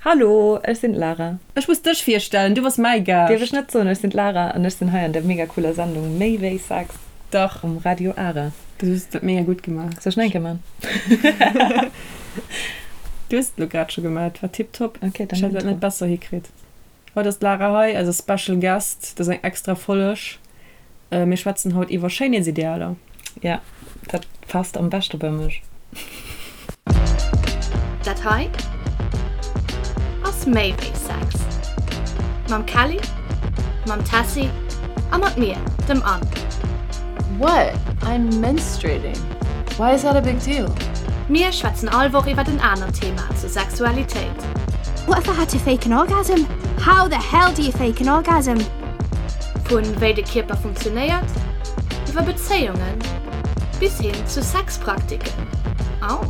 Hallo, ech sinn d'Lara. Ech muss dech virstellen, du bass mäi Gaascht. Dierf ech net soen, ech sinn d'Lara an ech sinn hei an der mega cooler Sendung Méi wéi Sex. Dach. Um Radio Ara. Du hues dat mega gutt gemaach. Soll ech nach eng Kéier man? Du hues et elo grad scho gemaach, et war tiptop. Ok, dann Ech hätt dat net besser hikritt. Haut ass d'Lara hei, eise Special Guest. Dat ass eng extra Folleg. Mir schwätzen haut iwwer Schéinheetsidealer. Ja, dat passt am beschte bei mech. Dat hei ass méi wéi Sex. Mam Kelly, mam Tessy a mat mir, dem Anne. What? I'm menstruating. Why is that a big deal? Mir schwätzen all Woch iwwert en anert Thema zur Sexualitéit. What if I had to fake an orgasm? How the hell do you fake an orgasm? Vu wéi de Kierper funktionéiert, iwwer Bezéiungen bis hin zu Sexpraktiken. Au!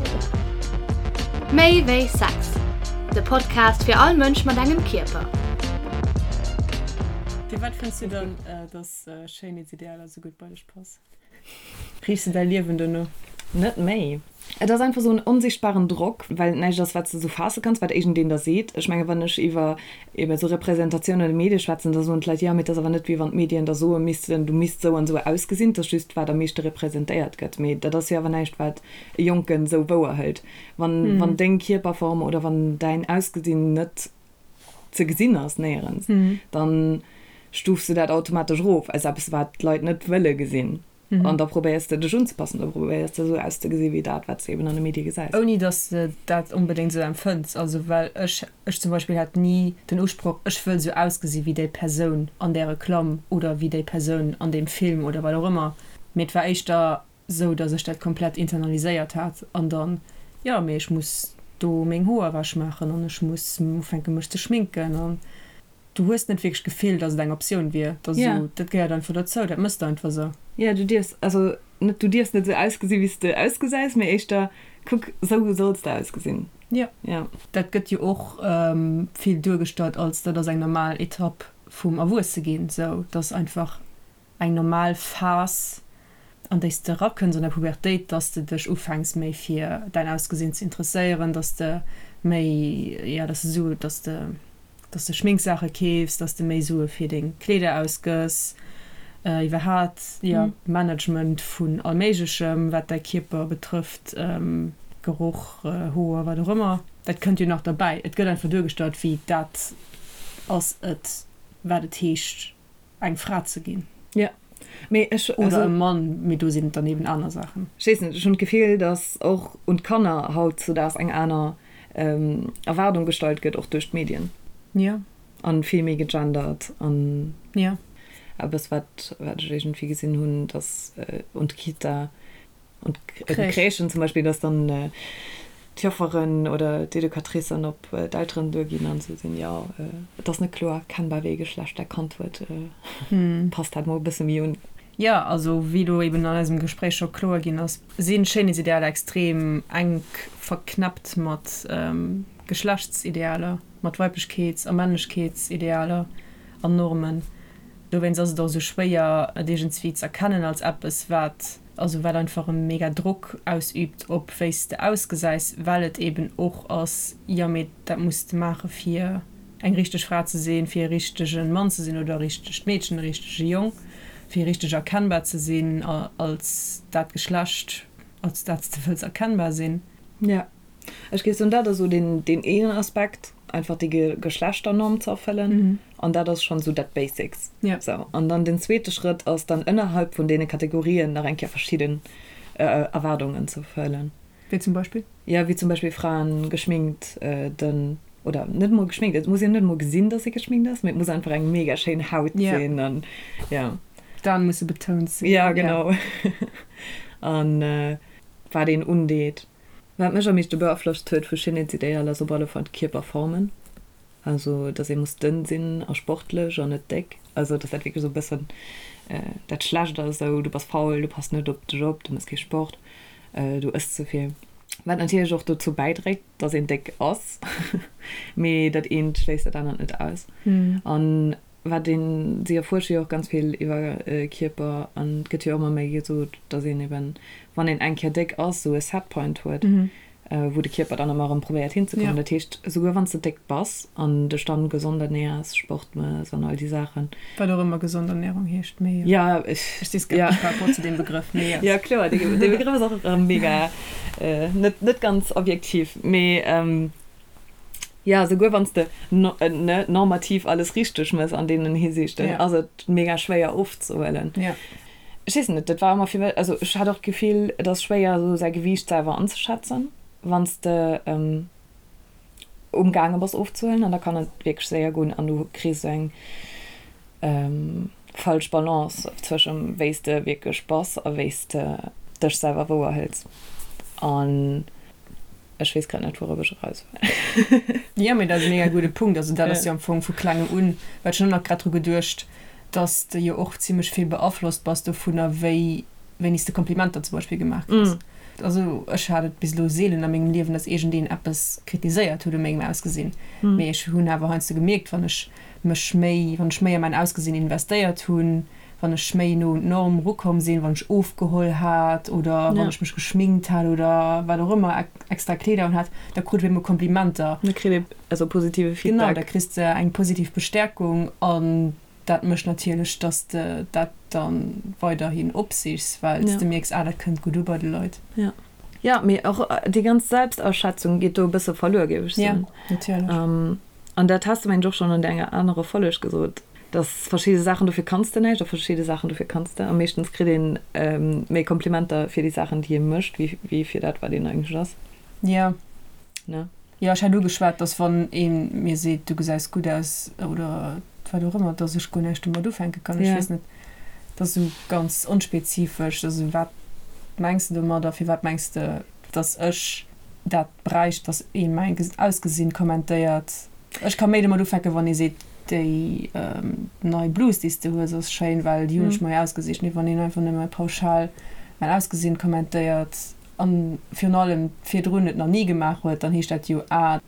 Méi wéi Sex, de Podcast fir all Mënsch mat engem Kierper. Firwat fënns du dann, dass Schéinheetsidealer esou gutt bei dech passen? Riichs de däi Liewen dono? Net méi. Et ass einfach esou en onsichtbaren Drock, well et näischt ass, wat s de esou faasse kanns, wat iergendeen der seet. Ech menge wann ech iwwer ebe esou Representatioun an de Medie schwätzen, da soen d'Leit, jo, mee et ass awer net, wéi wann d'Medien der soe missten, du misst esou an esou ausgesinn. Et ass just, wat am meeschte representéiert gëtt. Mee dat ass jo awer näischt, wat e Jonken esou wouer hëlt. Wann, wann deng Kierperform oder wann däin Ausgesinn net ze gesinn ass néierens, dann stufs de dat automatesch erof als eppes, wat d'Leit net wëlle gesinn. An da probéiers de dech unzepassen, da probéiers de esou auszegesi wéi dat, wat s de eben an de Medie gesäis. Ouni datt s de dat onbedéngt esou empfënns. Also well ech, ech zum Beispill hat ni den Usproch, ech wëll esou ausgesi wéi déi Persoun an där Reklamm oder wéi déi Persoun an deem Film oder wat och ëmmer. Mee et war éischter sou dass ech dat komplett internaliséiert hat an dann, jo mee ech muss do meng Hoer ewech maachen an ech muss ufänke mech ze schminken an du hues net wierklech d'Gefill, dass et eng Optioun wier, dass esou, dat gehéiert einfach dozou, dat mëss de einfach sou. Jo, du dierfs, also net du dierfs net sou ausgesi wéi s de ausgesäis, mee éischter kuck, sou solls de ausgesinn. Jo. Dat gëtt jo och vill duergestallt als dat ass eng normal Etapp vum Erwuesseginn, sou dass einfach eng normal Phas, an déi s de erakënns an der Pubertéit, dass de dech ufänks méi fir däin Ausgesinn ze interesséieren, dass de méi, jo, dass de Sue, dass de, dass de Schminksaache keefs, dass de méi Sue fir deng Kleeder ausgëss, iwwerhaat, jo, Management vun allméiglechem, wat däi Kierper betrëfft, Geroch, Hoer, wat och ëmmer, dat kënnt jo nach derbäi. Et gëtt einfach duergestallt, wéi dat ass et, wat et heescht, eng Fra ze ginn. Jo, mee ech, also. Oder e Mann, mee do sinn et dann eben aner Saachen. Ech weess net, ech hunn d'Gefill, datt och un d'Kanner hautzudaags eng aner Erwaardung gestallt gëtt, och duerch d'Medien. Jo. An vill méi gegendert an. Jo. Eppes, wat, wat ech iergendwéi gesinn hunn, datt un d'Kita Und d'Crèchen zum Beispill, dass dann d'Jofferen oder d'Educatricen op d'Elteren duerginn an se sinn, jo, et ass net kloer erkennbar, wéi ee Geschlecht dat Kand huet, passt dat mol e bësse méi un. Jo, also wéi elo eben an eisem Gespréich scho kloer ginn ass, si Schéinheetsidealer extrem enk verknäppt mat Geschlechtsidealer, mat Weiblechkeets a Männlechkeetsidealer an Normen. Dowéinst ass et och esou schwéier, et iergendswéi z'erkennen als eppes, wat also wat einfach e mega Drock ausübt op wéi s de ausgesäis, well et eben och ass, jo mee dat muss de maache fir eng richteg Fra ze sinn, fir e richtege Mann ze sinn oder e richtegt Meedchen, e richtege Jong, fir richteg erkennbar ze sinn als dat Geschlecht, als dat s de wëlls erkennbar sinn. Jo. Ech géif soen, dat ass esou deen, deen een Aspekt, einfach déi Geschlechternorm ze erfëllen. An dat ass schonn esou dat Basics. Sou. An dann den zweete Schrëtt ass dann ënnerhalb vun deene Kategorien nach eng Kéier verschidden Erwaardungen ze erfëllen. Wéi zum Beispill? Jo, wéi zum Beispill Fraen geschminkt, dënn oder net emol geschminkt, et muss een net emol gesinn, dass ee geschminkt ass, mee et muss einfach eng mega schéin Haut sinn an jo. D'Aen musse betount sinn. Jo, genau. An wat een undeet. Wat mech am meeschte beaflosst huet vu Schéinheetsidealer ass op alle Fall d'Kierperformen. Also dass ee muss dënn sinn a sportlech an net déck. Also dass dat wierklech esou e bëssen dat Schlecht ass, esou du bass faul, du pass net op dech op, du méchs kee Sport, du ëss ze vill. Wat natierlech och dozou bäidréit, dass een déck ass, mee dat eent schléisst dat anert net aus. An Wat een, si erfuersche jo och ganz vill iwwer Kierper an et gëtt jo ëmmer méi gesot, datt een eben, wann een eng Kéier déck ass, esou e Setpoint huet. wou de Kierper dann ëmmer erëm probéiert hinzekommen. Dat heescht, esouguer wann s de déck bass an dech dann gesond ernährs, Sport mëss an all déi Saachen. Wat och ëmmer gesond Ernährung heescht, mee jo. Ja, ech. Ech si skeptesch par rapport zu deem Begrëff, mee jo. Jo, kloer, dee Begrëff ass och erëm mega net, net ganz objektiv, mee jo, esouguer wann s de ne normativ alles richteg mëss an deenen Hisiichten, ass et mega schwéier ofzehuelen. Ech weess net, dat war ëmmer fir mech, also ech hat och d'Gefill, et ass schwéier esou säi Gewiicht selwer anzeschätzen, wann s de umgaange bass ofzehuelen an da kann et wierklech séier goen an du kriss esou eng falsch Balance zwëschem wéi s de wierklech bass a wéi s de dech selwer wouer hëls an ech weess grad net wourop ech eraus wëll. Jo, mee dat ass e mega gudde Punkt. Also dat ass jo am Fong vu klengem un, well ech hunn och nach grad dru geduecht, dass de jo och zimlech vill beaflosst bass dovunner, wéi wéini s de Komplimenter zum Beispill gemaach kriss. Also ech hat et bis elo seelen a mengem Liewen, dass iergendeen eppes kritiséiert huet u mengem Ausgesinn, mee ech hunn awer heiansdo gemierkt, wann ech mech méi, wann ech méi a mäin Ausgesinn investéiert hunn, wann ech méi no un d'Norm erukomm sinn, wann ech ofgeholl hat oder wann ech mech geschminkt hat oder wat och ëmmer, extra Kleeder un hat, da krut ech op eemol Komplimenter. Da kritt ee also positive Feedback. Genau, da kriss de eng positiv Bestäerkung an dat mécht natierlech, dass de dat da weiderhin opsichs, well s de mierks, ah dat kënnt gutt u bei de Leit. Jo, jo, mee och déi ganz Selbstaschätzung geet do e bësse verluer, géif ech soen. Jo, natierlech. An dat has de mengen ech och schonn an enger anerer Folleg gesot, dass verschidde Saachen, dofir kanns de näischt a verschidde Saachen, dofir kanns de. A meeschtens kritt een méi Komplimenter fir déi Saachen, déi ee mécht, wéi fir dat, wat een eigentlech ass. Jo. Ne? Jo, ech hat ugeschwat, dass wann ee mir seet, du gesäis gutt aus oder wat och ëmmer, dass ech guer näischt domat ufänke kann. Ech weess net, dat ass esou ganz onspezifesch. Also wat mengs de domadder? Firwat mengs de, dass ech dat bräicht, dass ee mäin Ausgesinn kommentéiert. Ech ka méi domat ufänken, wann ee seet, déi nei Blus, déi s de hues, ass schéin, well déi hunn ech mer jo ausgesicht. Mee wann een einfach nëmme pauschal mäin Ausgesinn kommentéiert an virun allem virdrun et nach ni gemaach huet, dann heescht dat jo, ah,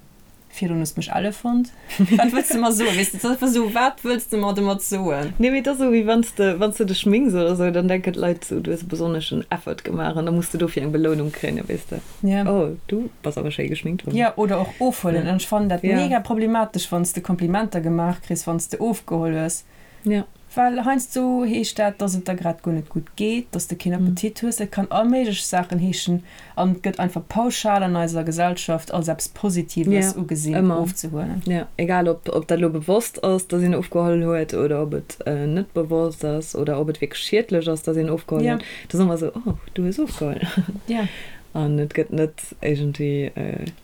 Virdrun hues de mech elle fonnt. Wat wëlls de mer soen? Weess de, et ass einfach esou, wat wëlls de mer domat soen? Nee, mee et ass esou, wéi wann s de, wann s de dech schminks oder esou, dann denken d'Leit esou, du hues e besonneschen Effort gemaach an da muss de dofir eng Belounung kréien, weess de. Ja. Oh, du bass awer schéi geschminkt. Jo, oder och ofhuelen. An ech fannen dat mega problematesch, wann s de Komplimenter gemaach kriss, wann s de ofgeholl hues. Ja. Well heiansdo heescht dat, dass et der grad guer net gutt geet, dass de keen Appetit hues. Et kann all méiglech Saachen heeschen an et gëtt einfach pauschal an eiser Gesellschaft als eppes Positives Ja, ugesinn, ëmmer. ofzehuelen. Ja, egal ob, ob dat elo bewosst ass, dass een ofgeholl huet oder ob et net bewosst ass oder ob et wierklech schiedlech ass, dass een ofgeholl Ja. huet. Et ass ëmmer esou, oh, du hues ofgeholl. Ja. An et gëtt net iergendwéi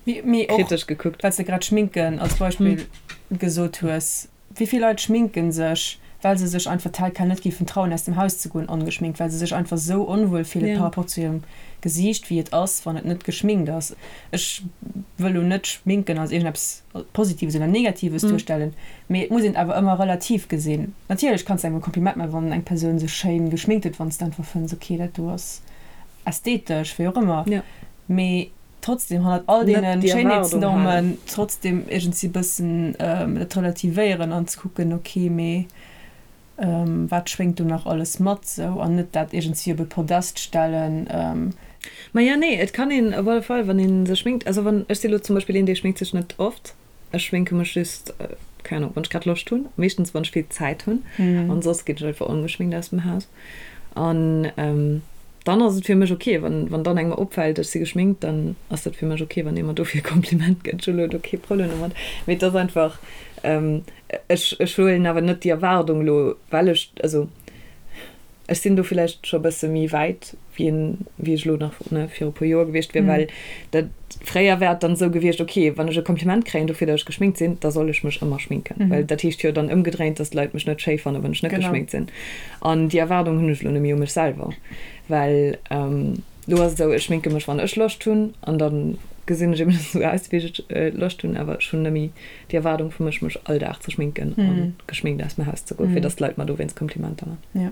Mee, mee och, kritesch gekuckt. well s de grad Schminken als Beispill gesot hues, Wéi vill Leit schminken sech, well se sech einfach tel quel net géifen trauen aus dem Haus ze goen ongeschminkt, well se sech einfach sou onwuel fillen par rapport zu hirem Gesiicht wéi et ass wann et net geschminkt ass. Ech wëll lo net schminken als iergendeppes Positives oder Negatives duerstellen, mee et muss een et awer ëmmer relativ gesinn. Natierlech kanns de engem e Kompliment maachen wann eng Persoun sech schéin geschminkt huet, wann s de einfach fënns ok dat do ass ästhetesch, wéi och ëmmer, mee trotzdem hannert all deene Schéinheetsnormen trotzdem iergendwéi bëssen dat relativéieren an ze kucken, ok, mee wat schwéngt do nach alles mat sou an net dat iergendwéi op e Podest stellen. Maja, nee, et kann een op alle Fall, wann ee sech schminkt, also wann, ech si lo zum Beispill een, dee schminkt sech net oft, ech schminke mech just, keng Ahnung, wann ech grad Loscht hunn, meeschtens wann ech vill Zäit hunn, an soss ginn ech einfach ongeschminkt aus dem Haus. An dann ass et fir mech ok, wann wann dann engem opfält, ech si geschminkt, dann ass dat fir mech ok, wann ee mer dofir e Kompliment gëtt. Ech hu lo do kee Problem domat. Mee et ass einfach, ech ech huelen awer net déi Erwaardung lo, well ech, also ech sinn do villäicht scho e bësse méi wäit wéi een, wéi ech elo nach, ne, viru e puer Joer gewiescht wier, well dat fréier wär et dann esou gewiescht, ok, wann ech e Kompliment kréien dofir, datt ech geschminkt sinn, da soll ech mech ëmmer schminken, well dat heescht jo dann ëmgedréint, datt d'Leit mech net schéi fannen, wann ech net geschminkt sinn. An déi Erwaardung hunn ech elo net méi u mech selwer, well elo ass et esou, ech schminke mech, wann ech Loscht hunn, an da gesinn ech eben esou aus, wéi ech Loscht hunn, awer ech hunn net méi déi Erwaardung vu mech, mech all Dag ze schminken a geschminkt aus dem Haus ze goen, fir datt d'Leit mer dowéinst Komplimenter man.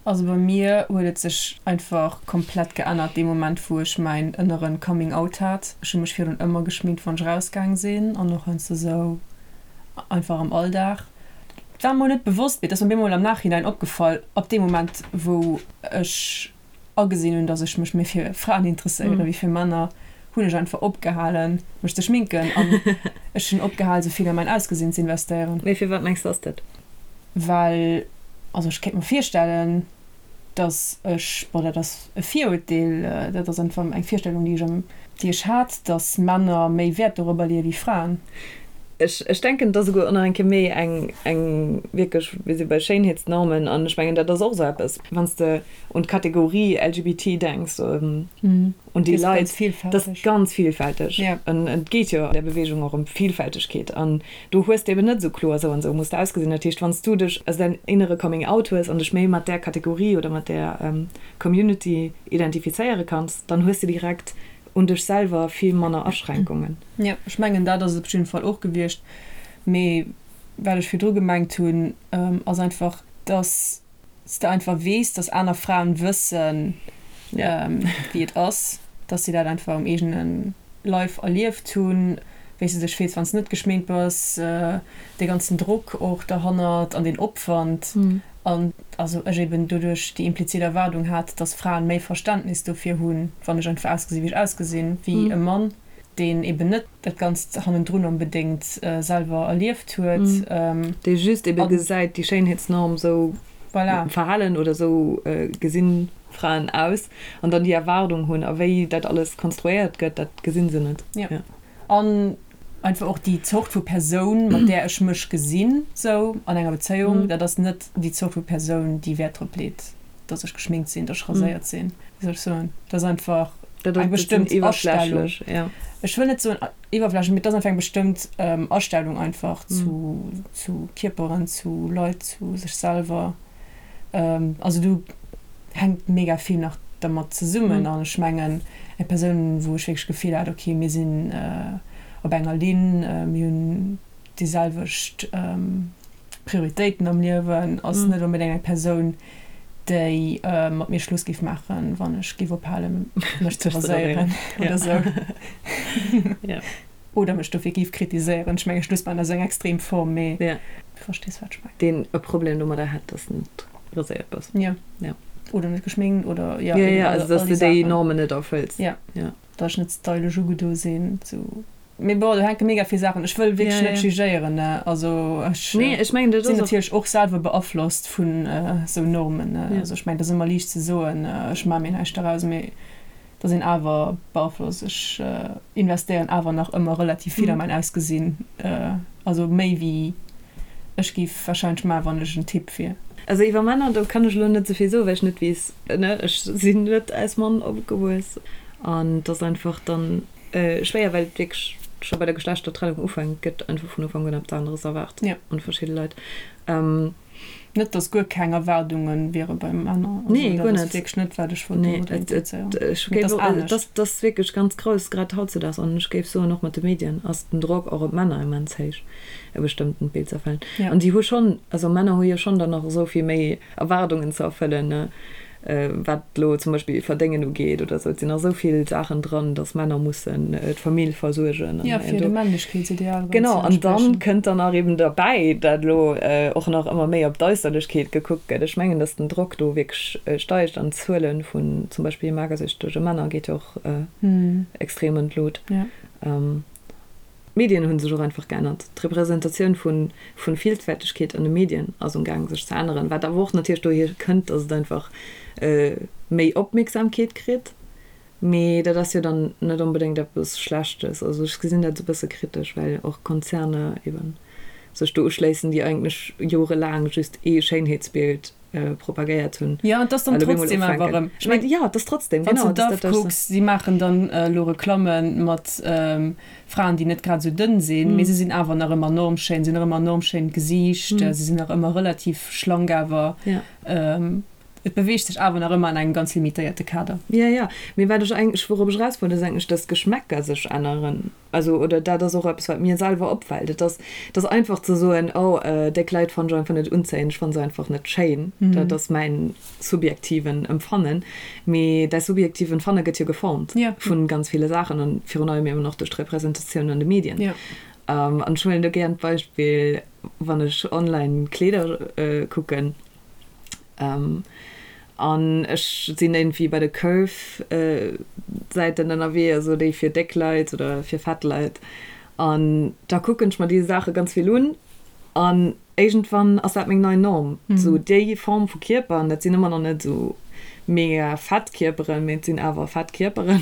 Also bei mir huet et sech einfach komplett geännert dee Moment wou ech mäin ënneren Coming Out hat. Ech hu mech virdrun ëmmer geschminkt wann ech rausgaang sinn an och heiansdo sou einfach am Alldag. Et war mer net bewosst, mee et ass mer bemol am Nachhinein opgefall, ab deem Moment wou ech agesinn hunn, dass ech mech méi fir Fraen interesséieren wéi fir Männer, Hunn ech einfach opgehalen mech ze schminken an ech hunn opgehal sou vill a mäin Ausgesinn ze investéieren. Mee firwat mengs de ass dat? Well, also ech kéint mer virstellen, dass ech, bon dat ass e Virurteel, dat ass einfach eng Virstellung déi ech am, déi ech hat, dass Männer méi Wäert dorobber leeë wéi Fraen. Ech, ech denken et ass esouguer och nach eng Kéier méi eng, eng wierklech, mir si bei Schéinheetsnormen an ech mengen dat ass och esou eppes, wann s de un d'Kategorie LGBT denks, Un déi Leit, dat ass ganz vielfälteg. An et geet jo an där Beweegung och ëm Vielfältegkeet. An do hues de eben net esou kloer, esou an esou muss de ausgesinn. Dat heescht, wann s du dech, also däin innere Coming Out hues an dech méi mat där Kategorie oder mat där Community identifizéiere kanns, dann hues de direkt un dech selwer vill manner Aschränkungen. Jo, ech mengen, dat ass et op jidde Fall och gewiescht. Mee wat ech virdru gemengt hunn, ass einfach, dass s de einfach weess, dass aner Fraen wëssen, wéi et ass, dass si dat einfach um eegene Leif erlieft hunn, wéi s de dech fills, wann s de net geschminkt bass, dee ganzen Drock och derhannert an deen Opwand. An also ech eben doduerch déi implizit Erwaardung hat, dass Fraen méi Verständnis dofir hunn, wann ech einfach ausgesi wéi ech ausgesinn, wéi e Mann. deen eben net dat Ganzt hannendrun onbedéngt selwer erlieft huet. Dee just ebe gesäit, déi Schéinheetsnorm, esou verhalen oder esou gesinn Fraen aus, an dann déi Erwaardung hunn. A wéi dat alles konstruéiert gëtt, dat gesinn se net. Jo. An einfach och déi Zort vu Persoun, mat där ech mech gesinn, sou an enger Bezéiung, dat ass net déi Zort vu Persoun, déi Wäert drop leet, dass ech geschminkt sinn, dass ech raséiert sinn, wéi soll ech soen, dat ass einfach eng bestëmmt Astellung. Ech wëll net soen iwwerflächlech, mee et ass einfach eng bestëmmt Astellung einfach zu, zu Kierperen, zu Leit, zu sech selwer. Also do hänkt mega vill nach dermat zesummen an ech mengen eng Persoun, wou ech wierklech d'Gefill hat, okay, mir sinn op enger Linn, mir hunn déi selwecht Prioritéiten am Liewen, ass net onbedéngt eng Persoun, déi mat mir Schluss géif maachen, wann ech géif ophalen, mech ze raséieren oder sou. Oder mech dofir géif kritiséieren. Ech menge Schluss maachen ass eng extrem Form, mee du verstees, wat ech mengen. Deen e Problem domadder hätt, dass de net raséiert bass. Jo. Oder net geschminkt oder jo, eben all déi Saachen. Also dass de déi Normen net erfëlls. Jo. Dass ech net stylesch ugedo sinn, sou. Mee bon, do hänke mega vill Saachen. Ech wëll wierklech net jugéieren, ne. Also ech sinn natierlech och selwer beaflosst vun esou Normen, ne. Also ech mengen, et ass ëmmer liicht ze soen, ech maache mir näischt doraus, mee et ass een awer beaflosst. Ech investéieren awer nach ëmmer relativ vill a mäin Ausgesinn, also méi wéi ech géif warscheinlech maachen, wann ech en Typ wier. Also iwwer Männer, do kann ech elo net esou vill soen, well ech net weess, ne, ech sinn net als Mann opgewuess an et ass einfach dann. Schwéier, well et wierklech scho bei der Geschlechtertrennung ufänkt, gëtt einfach vun Ufank un eppes aneres erwaart un verschidde Leit. Net, dass guer keng Erwaardunge wiere bei Männer. Nee, guer net. Dat ass wierklech net, wat ech wollt domadder implizéieren. Mee et ass anescht. Et ass wierklech ganz grouss, grad hautzedaags. An ech géif soen, och mat de Medien ass den Drock och op d'Männer immens héich, e bestëmmtent Bild ze erfëllen. An déi hu schonn, also Männer hu jo schonn dann nach esou vill méi Erwaardungen ze erfëllen, wat elo zum Beispill Verdéngen ugeet oder esou. Et sinn nach esou vill Saachen dran, datt Männer mussen d'Famill versuergen. Jo, fir dem Männlechkeetsideal erëm ze Genau, an dann kënnt dann nach eben derbäi, dat elo och nach ëmmer méi op d'Äusserlechkeet gekuckt gëtt. Ech mengen, datt den Drock do wierklech steigt an d'Zuele vun zum Beispill magersüchtege Männer geet jo och extrem an d'Lut. D'Medien hu sech och einfach geännert. D'Representatioun vu Villfältegkeet an de Medien ass um Gaang sech ze änneren, wat awer och natierlech dohier kënnt, datt et einfach méi Opmierksamkeet kritt. Mee dat ass jo dann net onbedéngt eppes Schlechtes. Also ech gesinn dat esou e bësse kritesch, well och Konzerner eben sech do uschléissen, déi eigentlech jorelaang just ee Schéinheetsbild propagéiert hunn. Jo, et ass dann trotzdem awer erëm. Ech mengen, jo, et ass trotzdem, genau. Wann s de Dove kucks, si maachen dann elo Reklamme mat Fraen, déi net grad esou dënn sinn, mee se sinn awer nach ëmmer normschéin, se hunn nach ëmmer en normschéint Gesiicht, se sinn nach ëmmer relativ schlank awer. Et beweegt sech awer nach ëmmer an engem ganz limitéierte Kader. Jo, jo, mee wat ech eigentlech, wourop ech eraus wollt, ass eigentlech, dass d'Geschmäcker sech änneren. Also, oder dat ass och eppes, wat mir selwer opfält. Et ass, et ass einfach ze soen, oh, déck Leit fannen ech einfach net unzéiend, ech fanne se einfach net schéin. Dat ass mäin subjektiven Empfannen. Mee däi subjektiv Empfanne gëtt jo geformt vu ganz ville Saachen an virun allem eben och duerch d'Representatioun an de Medien. An ech huelen do gären d'Beispill, wann ech online Kleeder kucken. An ech sinn iergendwéi bei de Curve-Säiten ënnerwee, also déi fir déck Leit oder fir fett Leit. An da kucken ech mer déi Saache ganz vill un. An iergendwann ass dat meng nei Norm, esou déi Form vu Kierper. An dat sinn ëmmer nach net esou mega fett Kierperen, mee et sinn awer fett Kierperen,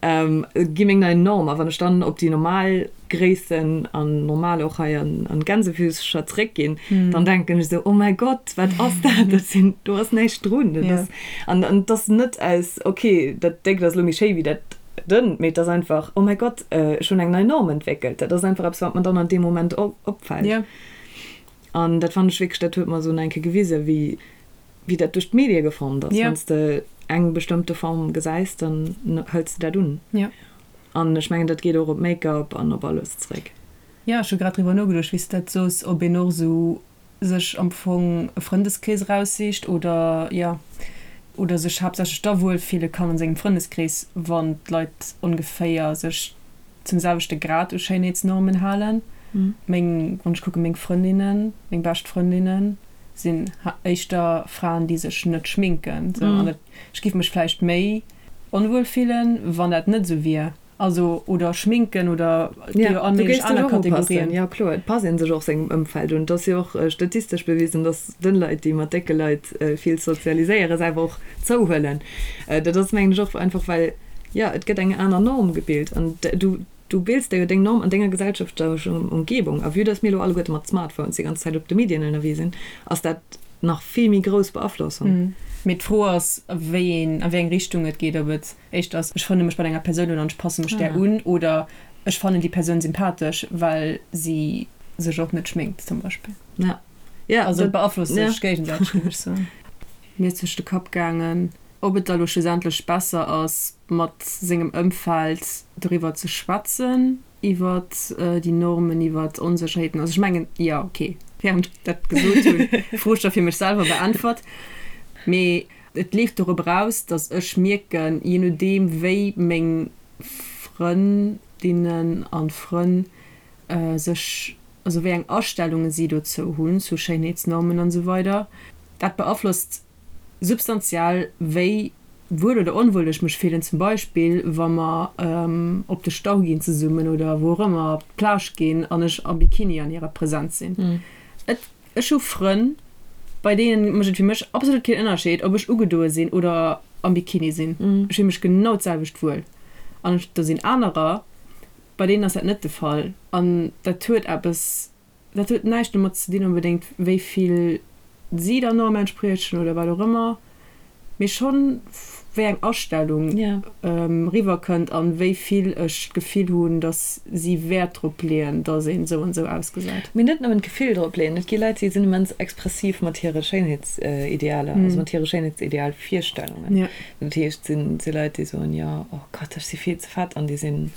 gi meng nei Norm. A wann ech dann op déi normal Gréissen an normal och hei an Gänsefüßcher zréck ginn, dann denken ech esou, oh mäi Gott, wat ass dat, dat sinn, do ass näischt drun. Dat ass, an an et ass net aus, ok, dat Déckt ass elo méi schéi wéi dat Dënnt, mee et ass einfach, oh mäi Gott, ech hunn eng nei Norm entwéckelt. Dat ass einfach eppes, wat mer dann an deem Moment opfält. An dat fannen ech wierklech, dat huet mer esou nach eng Kéier gewisen, wéi wéi dat duerch d'Medie geformt ass. Wann s de eng bestëmmte Form gesäis, dann hëls de dat un. An ech mengen, dat geet och op Make-up an op alles zréck. Jo, ech hu grad driwwer nogeduecht, wéi s de dat soos, ob een och esou sech am Fong e Frëndeskrees eraussicht oder, jo, oder sech haaptsächlech da wuel fille kann an sengem Frëndeskrees, wann d'Leit ongeféier sech zum selwechte Grad u Schéinheetsnormen halen. Meng, wann ech kucken, meng Frëndinnen, meng bescht Frëndinnen sinn éischter Fraen, déi sech net schminken, sou, an dat, ech giff mech vläicht méi onwuel fillen, wann dat net esou wier. Also, oder schminken oder et gi jo all méiglech aner Kategorien. Jo kloer, et passt ee sech och sengem Ëmfeld un. Et ass jo och statistesch bewisen, datt dënn Leit, déi mat décke Leit vill sozialiséieren, selwer och zouhuelen. Dat ass mengen ech och einfach well, jo, et gëtt eng aner Norm gebilt an du du bills der jo deng Norm an denger gesellschaftlecher Umgebung. A vue datt mir elo alleguerte mat Smartphones déi ganz Zäit op de Medien ënnerwee sinn, ass dat nach vill méi grouss Beaflossung. Mee d'Fro ass, wéi een, a wéi eng Richtung et geet, ob et éischter ass, ech frënne mech mat enger Persoun un an ech passe mech där un, oder ech fannen déi Persoun sympathesch, well si sech och net schminkt zum Beispill. Ja. Ja, also et beaflosst sech géigesäiteg, géif ech soen. Mir ass duerch de Kapp gaangen, ob et da lo schlussendlech besser ass, mat sengem Ëmfeld doriwwer ze schwätzen, iwwer déi Normen, iwwer d'Onsécherheeten. Also ech mengen, jo, okay, während ech dat gesot hunn, d'Fro scho fir mech selwer beäntwert. Mee et leeft dorop eraus, datt ech mierken, je nodeem wéi meng Frëndinnen a Frënn sech, also wéi eng Astellunge si dozou hunn, zu Schéinheetsnormen an esou weider, dat beaflosst substantiell, wéi wuel oder onwuel ech mech fillen, zum Beispill wa mer op de Stau ginn zesummen oder wou och ëmmer, op d'Plage ginn an ech am Bikini an hirer Präsenz sinn. Et, ech hu Frënn, bei deenen mécht et fir mech absolut keen Ënnerscheed, ob ech ugedoe sinn oder am Bikini sinn. Ech fille mech genau d'selwecht wuel. An do sinn anerer, bei deenen ass dat net de Fall. An dat huet eppes Dat huet näischt domat ze dinn onbedéngt, wéi vill si der Norm entspriechen oder wat och ëmmer, mee schonn, wéi eng Astellung eriwwer kënnt an wéi vill ech d'Gefill hunn, datt si Wäert drop leeën, datt een esou an esou ausgesäit. Mee net nëmmen d'Gefill drop leeën. Et gi Leit, déi sinn immens expressiv mat hire Schéinheetsidealer, also mat hire Schéinheitsidealvirstellungen. Dat heescht, et si Leit, déi soen, jo, oh Gott, ech si vill ze fett an déi sinn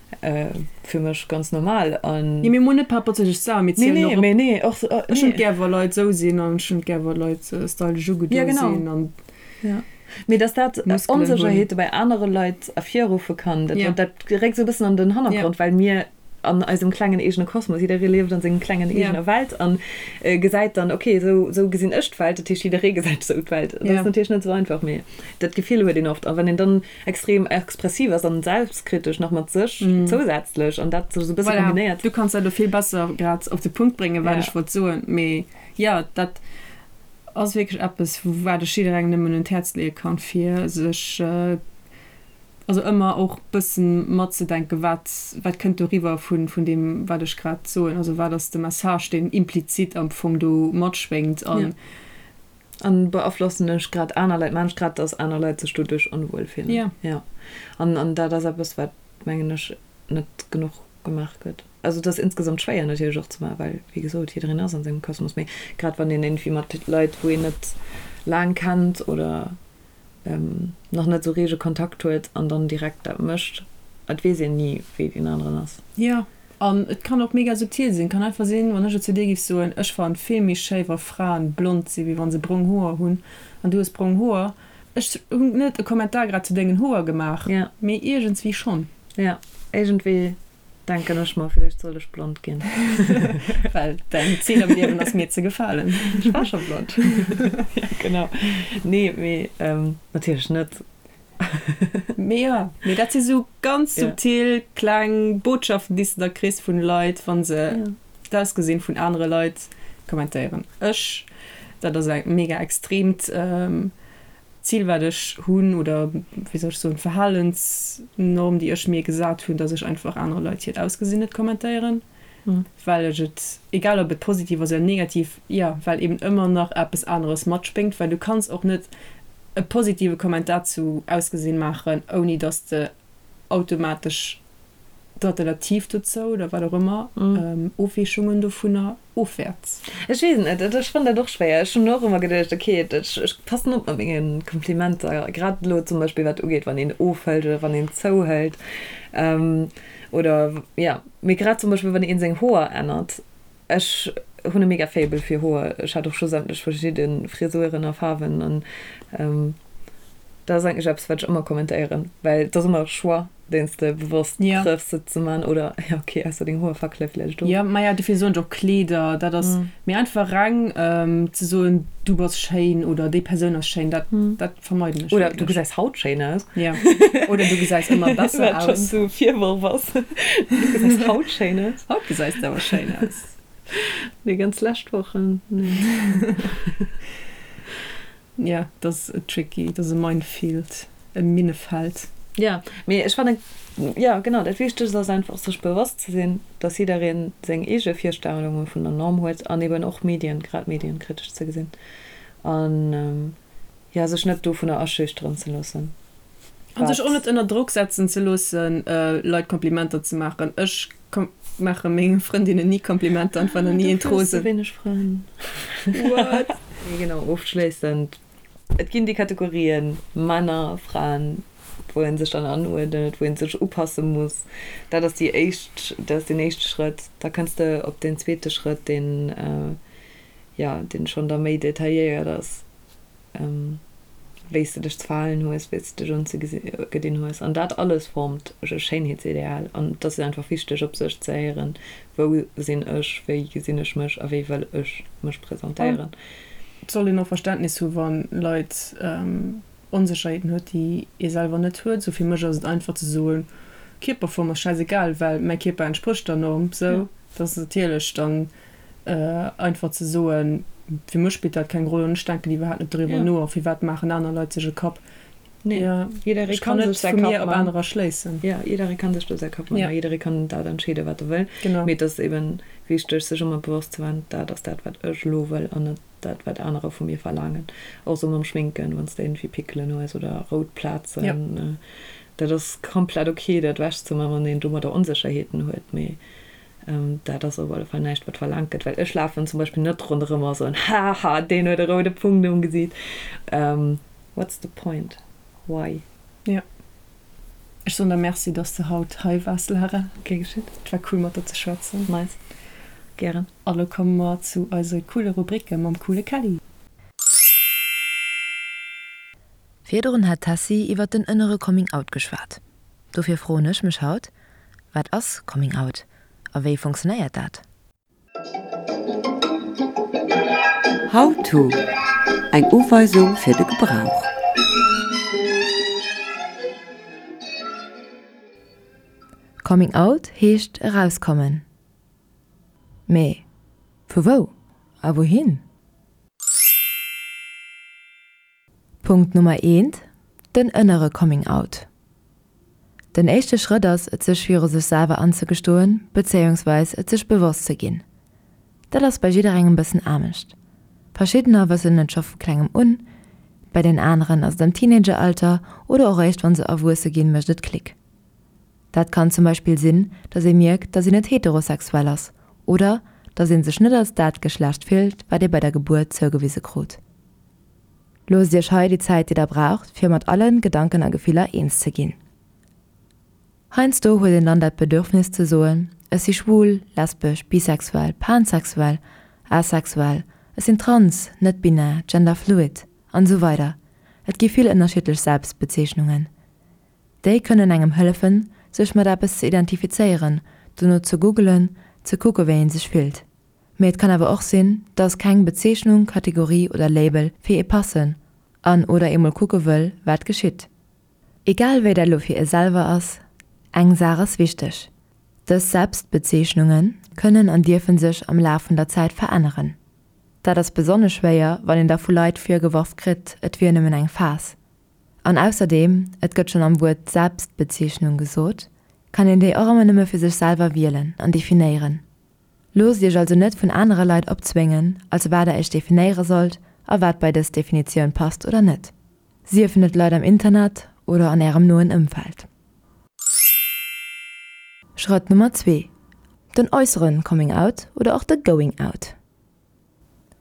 Fir mech ganz normal an. Jo, mee mol net par rapport zu sech selwer, mee zielen och op. Nee, nee, och. Ech hunn et gär wa Leit esou sinn an ech hunn et gär wa Leit stylesch ugedoe sinn an. Jo, genau. Mee dass dat Onsécherheete bei anere Leit ervirruffe kann, dat dat réckt esou e bëssen an den Hannergrond, well mir an eisem klengen eegene Kosmos, jidderee lieft an sengem klengen eegener Welt an gesäit dann, okay, esou esou gesinn ech d'Welt, dat heescht jidderee gesäit esou d'Welt. Dat ass natierlech net esou einfach, mee dat Gefill huet een oft. A wann een dann extrem expressiv ass an selbstkritesch nach mat sech zousätzlech an dat sech esou e bësse Voilà, kombinéiert. du kanns dat elo vill besser grad op de Punkt bréngen, wat ech wollt soen. Mee jo, dat ass wierklech eppes, wat ech jidderengem nëmmen un d'Häerz leeë kann, fir sech also ëmmer och bëssen matzedenken, wat wat kënnt do riwwer vun vun deem, wat ech grad soen. Also wat ass de Message, deen implizit am Fong do matschwéngt an. An beaflossen ech grad aner Leit, maan ech grad, dass aner Leit sech doduerch onwuel fillen? Jo. Jo. An, an dat ass eppes, wat, mengen ech, net genuch gemaach gëtt. Also et ass insgesamt schwéier natierlech och ze maachen, well, wéi gesot, jiddereen ass an sengem Kosmos. Mee grad wann een iergendwéi mat Leit, wou een net laang kennt oder nach net esou rege Kontakt huet an dann direkt dat mécht, et weess een ni, wéi deen aneren ass. Jo. An et kann och mega subtil sinn. Kann einfach sinn, wann ech et zu dir giff soen, ech fannen et vill méi schéi wa Fraen blond sinn, wéi wann se brong Hoer hunn, an du hues brong Hoer. Ech hunn net e Kommentar grad zu dengen Hoer gemaach, mee iergendswéi schonn. Jo, iergendwéi. Denken ech mer, villäicht sollt ech blond ginn. Well däin Zil am Liewen ass mir ze gefalen. Ech war scho blond. Jo, genau. Nee, mee natierlech net. Mee jo, mee dat si sou ganz subtil kleng Botschaften, déi s de da kriss vun Leit, wa se d'Ausgesinn vun anere Leit kommentéieren. Ech, dat ass e mega extreemt Zil, wat ech hunn, oder wéi soll ech soen, d'Verhalensnorm, déi ech mir gesat hunn, dass ech einfach anere Leit hiert Ausgesinn net kommentéieren, well ech et, egal ob et positiv ass oder negativ, jo, well eben ëmmer nach eppes aneres matspéngt, well du kanns och net e positive Kommentar zu Ausgesinn maachen, ouni dass de automatesch d'Alternativ dozou oder wat och ëmmer, Ofweechungen dovunner ofwäerts. Ech weess et net, ech fannen dat och schwéier. Ech hunn och ëmmer geduecht, ok, ech passen op mat menge Komplimenter, grad elo zum Beispill wat ugeet, wann een ofhëlt oder wann een zouhëlt oder jo, mee grad zum Beispill wann een seng Hoer ännert. Ech hunn e mega Faible fir Hoer, ech hat och scho sämtlech verschidde Frisuren a Faarwen an dat ass eigentlech eppes wat ech ëmmer kommentéieren, well et ass ëmmer e Choix deen s de bewosst trëffs se ze man oder jo ok ausser deng Hoer fackele vläicht of. Jo maja dofir soen ech och Kleeder, dat ass mee einfach reng ze soen du bass schéin oder déi Persoun ass schéin, dat dat vermeiden ech Oder du gesäis haut schéin aus. Jo oder du gesäis ëmmer besser aus. Wat schonn esou e Virworf ass, du gesäis haut schéin aus. Haut gesäis de awer schéin aus. Déi ganz lescht Wochen, nee. Jo, dat ass tricky, dat ass e Minefield, e Minnefeld. Jo, mee ech fannen, jo genau, dat Wichtegst ass einfach sech bewosst ze sinn, dass jiddereen seng eege Virstellunge vun der Norm huet an eben och Medien, grad Medien kritesch ze gesinn an jo sech net dovunner aschüchteren ze loossen. An sech och net ënner Drock setzen ze loossen, Leit Komplimenter ze maachen. Ech maache menge Frëndinnen ni Komplimenter an et war nach ni een Dofir hues de wéineg Frënn. What? Nee, genau, ofschléissend, et ginn déi Kategorien Männer, Fraen, wou ee sech dann anuerdnet, wou ee sech upasse muss. Dat ass déi éischt, dat ass deen éischte Schrëtt. Da kënns de op deen zweete Schrëtt, deen, jo, deen schonn da méi detailléiert ass. wéi s de dech ze verhalen hues, wéi s de dech unzegedinn hues. An dat alles formt e Schéinheetsideal. An et ass einfach wichteg, op sech ze héieren, Wou sinn ech, wéi gesinn ech mech a wéi wëll ech mech presentéieren? Et soll een och Verständnis hu wa Leit Onsécherheeten huet, déi ee selwer net huet. Sou fir mech ass et einfach ze soen, Kierperform ass schäisegal, well mäi Kierper entsprécht der Norm. Sou, dat ass natierlech dann Einfach ze soen, fir mech spillt dat keng Roll an ech denken iwwerhaapt net doriwwer no a firwat maachen aner Leit sech e Kapp. Nee, jidderee kann sech säi Kapp man. Op anerer schléissen. Jo, jidderee kann sech do säi Kapp man a jidderee kann dat entscheeden, wat e wëll. Mee et ass eben wichteg, sech ëmmer bewosst ze man, dat ass dat, wat ech elo wëll an net dat, wat anerer vu mir verlaangen. Och sou mam Schminken, wann s de iergendwéi Pickelen hues oder rout Plazen, dat ass komplett ok, dat ewechzeman, wann een domadder Onsécherheeten huet. Mee Dat ass op alle Fall näischt, wat verlaangt gëtt, well ech lafen zum Beispill net ronderëm a soen, Haha, deen huet e roude Punkt um Gesiit. What's the point? Why? Jo. Ech soen der Merci, dass de haut hei waars, Lara. Gär geschitt. Et war cool, mat der ze schwätzen. Nice. Gären. A lo komme mer zu eise coole Rubricke mam coole Kelly. Virdrun hat d'Tessy iwwer den ënnere Coming Out geschwat. Dofir froen ech mech haut, Wat ass Coming Out a wéi funktionéiert dat? How to, Eng Uweisung fir de Gebrauch. Coming Out heescht erauskommen. Mee vu wou a wouhin? Punkt Nummer eent, Den ënnere Coming Out. Den éischte Schrëtt ass et sech viru sech selwer anzegestoen, bezéiungsweis et sech bewosst ze ginn. Dat ass bei jidderengem bëssen anescht. Verschiddener wëssen et scho vu klengem un, bei den aneren ass et am Teenageralter oder och réischt wann se erwuesse ginn mécht et Klick. Dat kann zum Beispill sinn, dass ee mierkt, dass een net heterosexuell ass oder dass ee sech net als dat Geschlecht fillt, wat ee bei der Gebuert zougewise krut. Loosst iech hei déi Zäit déi der braucht fir mat allen Gedanken a Gefiller eens ze ginn. Heiansdo huet een dann dat Bedürfnis ze soen, ech si schwul, lesbesch, bisexuell, pansexuell, asexuell, ech sinn trans, net-binär, genderfluid, an esou weider Et gi vill ënnerschiddlech Selbstbezeechnungen. Déi kënnen engem hëllefen sech mat eppes ze identifizéieren, dono ze googelen, ze kucke wéi een sech fillt. Mee et kann awer och sinn, dass keng Bezeechnung, Kategorie oder Label fir ee passen an oder ee mol kucke wëll, wat geschitt. Egal wéi dat elo fir ee selwer ass, eng Saach ass wichteg, Dës Selbstbezeechnunge kënnen an dierfe sech am Laf vun der Zäit veränneren. Dat ass besonnesch schwéier, wann een da vu Leit virgeworf kritt, et wier nëmmen eng Phas. An ausserdeem, et gëtt schonn am Wuert Selbstbezeechnung gesot, kann een déi och ëmmer nëmme fir sech selwer wielen an definéieren. Loosst iech also net vun anere Leit opzwéngen, als wat der iech definéiere sollt a wat bei dës Definitioun passt oder net. Siefen et Leit am Internet oder an ärem noen Ëmfeld. Schrëtt Nummer 2, Den äusseren Coming Out oder och de Going Out.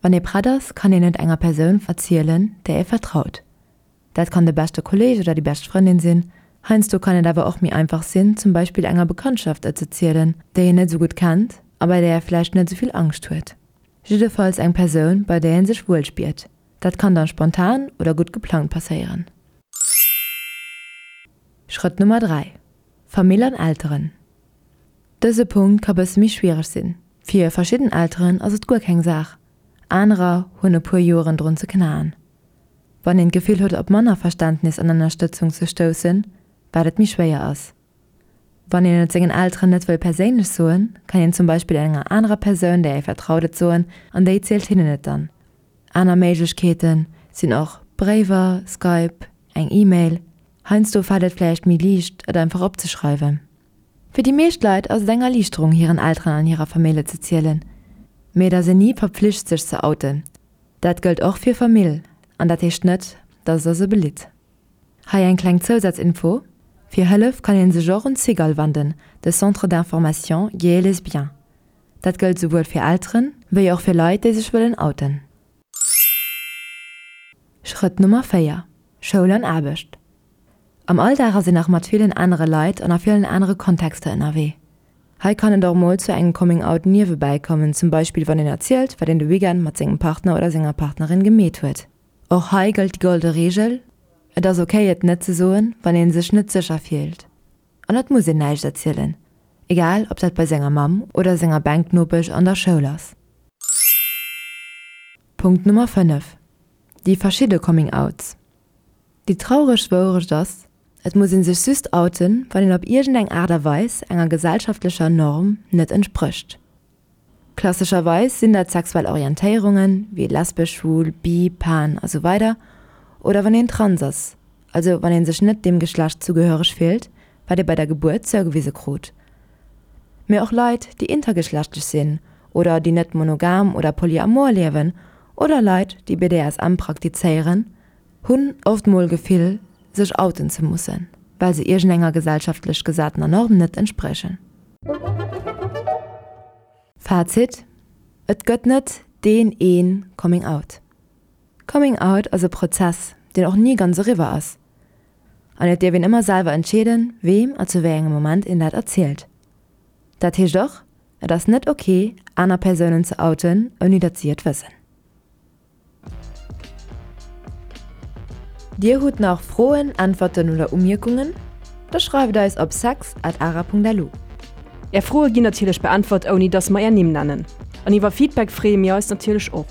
Wann ee prett ass, kann een et enger Persoun erzielen, där ee vertraut. Dat kann de beschte Kolleeg oder déi bescht Frëndin sinn. Heiansdo kann et awer och méi einfach sinn, zum Beispill enger Bekanntschaft et ze zielen, déi een net esou gutt kennt a bei där ee vläicht net esou vill Angscht huet. Jiddefalls eng Persoun, bei där ee sech wuel spiert. Dat kann dann spontan oder gutt geplangt passéieren. Schrëtt Nummer 3, Famill an Elteren. Dëse Punkt ka bësse méi schwiereg sinn. Fir verschidden Elteren ass et guer keng Saach, anerer hunn e puer Joeren drun ze knaen. Wann een d'Gefill huet op manner Verständnis an Ënnerstëtzung ze stoussen, wat et méi schwéier ass. Wann een et sengen Elteren net wëll perséinlech soen, kann een zum Beispill enger anerer Persoun, där ee vertraut, et soen an déi zielt hinnen et dann. Aner Méiglechkeete sinn och Bréiwer, Skype, eng E-Mail. Heiansdo fält et vläicht méi liicht, et einfach opzeschreiwen. Fir déi meescht Leit ass et eng Erliichterung, hiren Elteren an hirer Famill et ze zielen. Mee et ass een ni verpflicht, sech ze outen. Dat gëllt och fir Famill an dat heescht net, dass et der se belitt. Hei eng kleng Zousazinfo, Fir Hëllef kann een sech och un d'Cigale wanden, de Centre d'information gay et lesbien. Dat gëllt souwuel fir Elteren, wéi och fir Leit, déi sech wëllen outen. Schrëtt Nummer 4, Schoul an Aarbecht. Am Alldag ass een nach mat villen anere Leit an a villen anere Kontexter ënnerwee. Hei kann et och mol zu engem Coming Out niewebäi kommen, zum Beispill wann een erzielt, wat een de Weekend mat sengem Partner oder senger Partnerin gemeet huet. Och hei gëllt déi golde Reegel, Et ass ok et net ze soen, wann een sech net sécher fillt. An et muss een näischt erzielen, egal ob dat bei senger Mamm oder senger Bänknopesch an der Schoul ass. Punkt Nummer 5, Déi verschidde Coming Outs. Déi traureg Wourecht ass, Et muss ee sech just outen, wann een op iergendeng Aart a Weis enger gesellschaftlecher Norm net entsprécht. Klassescherweis sinn dat sexuell Orientéierungen, wéi lesbesch, schwul, bi, pan a sou weider oder wann een trans ass, also wann ee sech net deem Geschlecht zugehöreg fillt, wat ee bei der Gebuert zougewise krut. Mee och Leit, déi intergeschlechtlech sinn oder déi net monogam oder polyamor liewen oder Leit, déi BDSM praktizéieren, hunn oft mol Gefill, sech outen ze mussen, well se iergendenger gesellschaftlech gesatener Norm net entspriechen. Fazit, Et gëtt net deen een Coming Out. Coming Out ass e Prozess, deen och ni ganz eriwwer ass. An et dierf een ëmmer selwer entscheeden, weem a zu wéi engem Moment een dat erzielt. Dat heescht och, et ass net ok, aner Persounen ze outen, ouni datt si et wëssen. Dir hutt nach Froen, Äntwerten oder Umierkungen? Da schreift eis op sex at ara.lu. Är Froe ginn natierlech beäntwert ouni dass mer är Nimm nennen. An iwwer Feedback freeë mir eis natierlech och.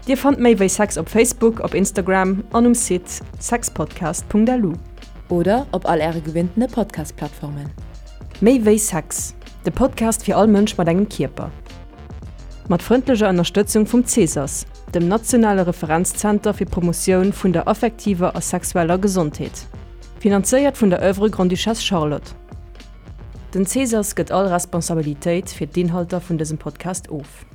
Dir fannt méi wéi Sex op Facebook, op Instagram an um Site sexpodcast.lu. Oder op all äre gewinntene Podcast-Plattformen. Méi wéi Sex, de Podcast fir all Mënsch mat engem Kierper. Mat frëndlecher Ënnerstëtzung vum CSAS, dem nationale Referenzzenter fir d'Promotioun vun der affektiver a sexueller Gesondheet. Finanzéiert vun der Oeuvre Grande-Duchesse Charlotte. Den CSAS gëtt all Responsabilitéit fir d'Inhalter vun dësem Podcast of.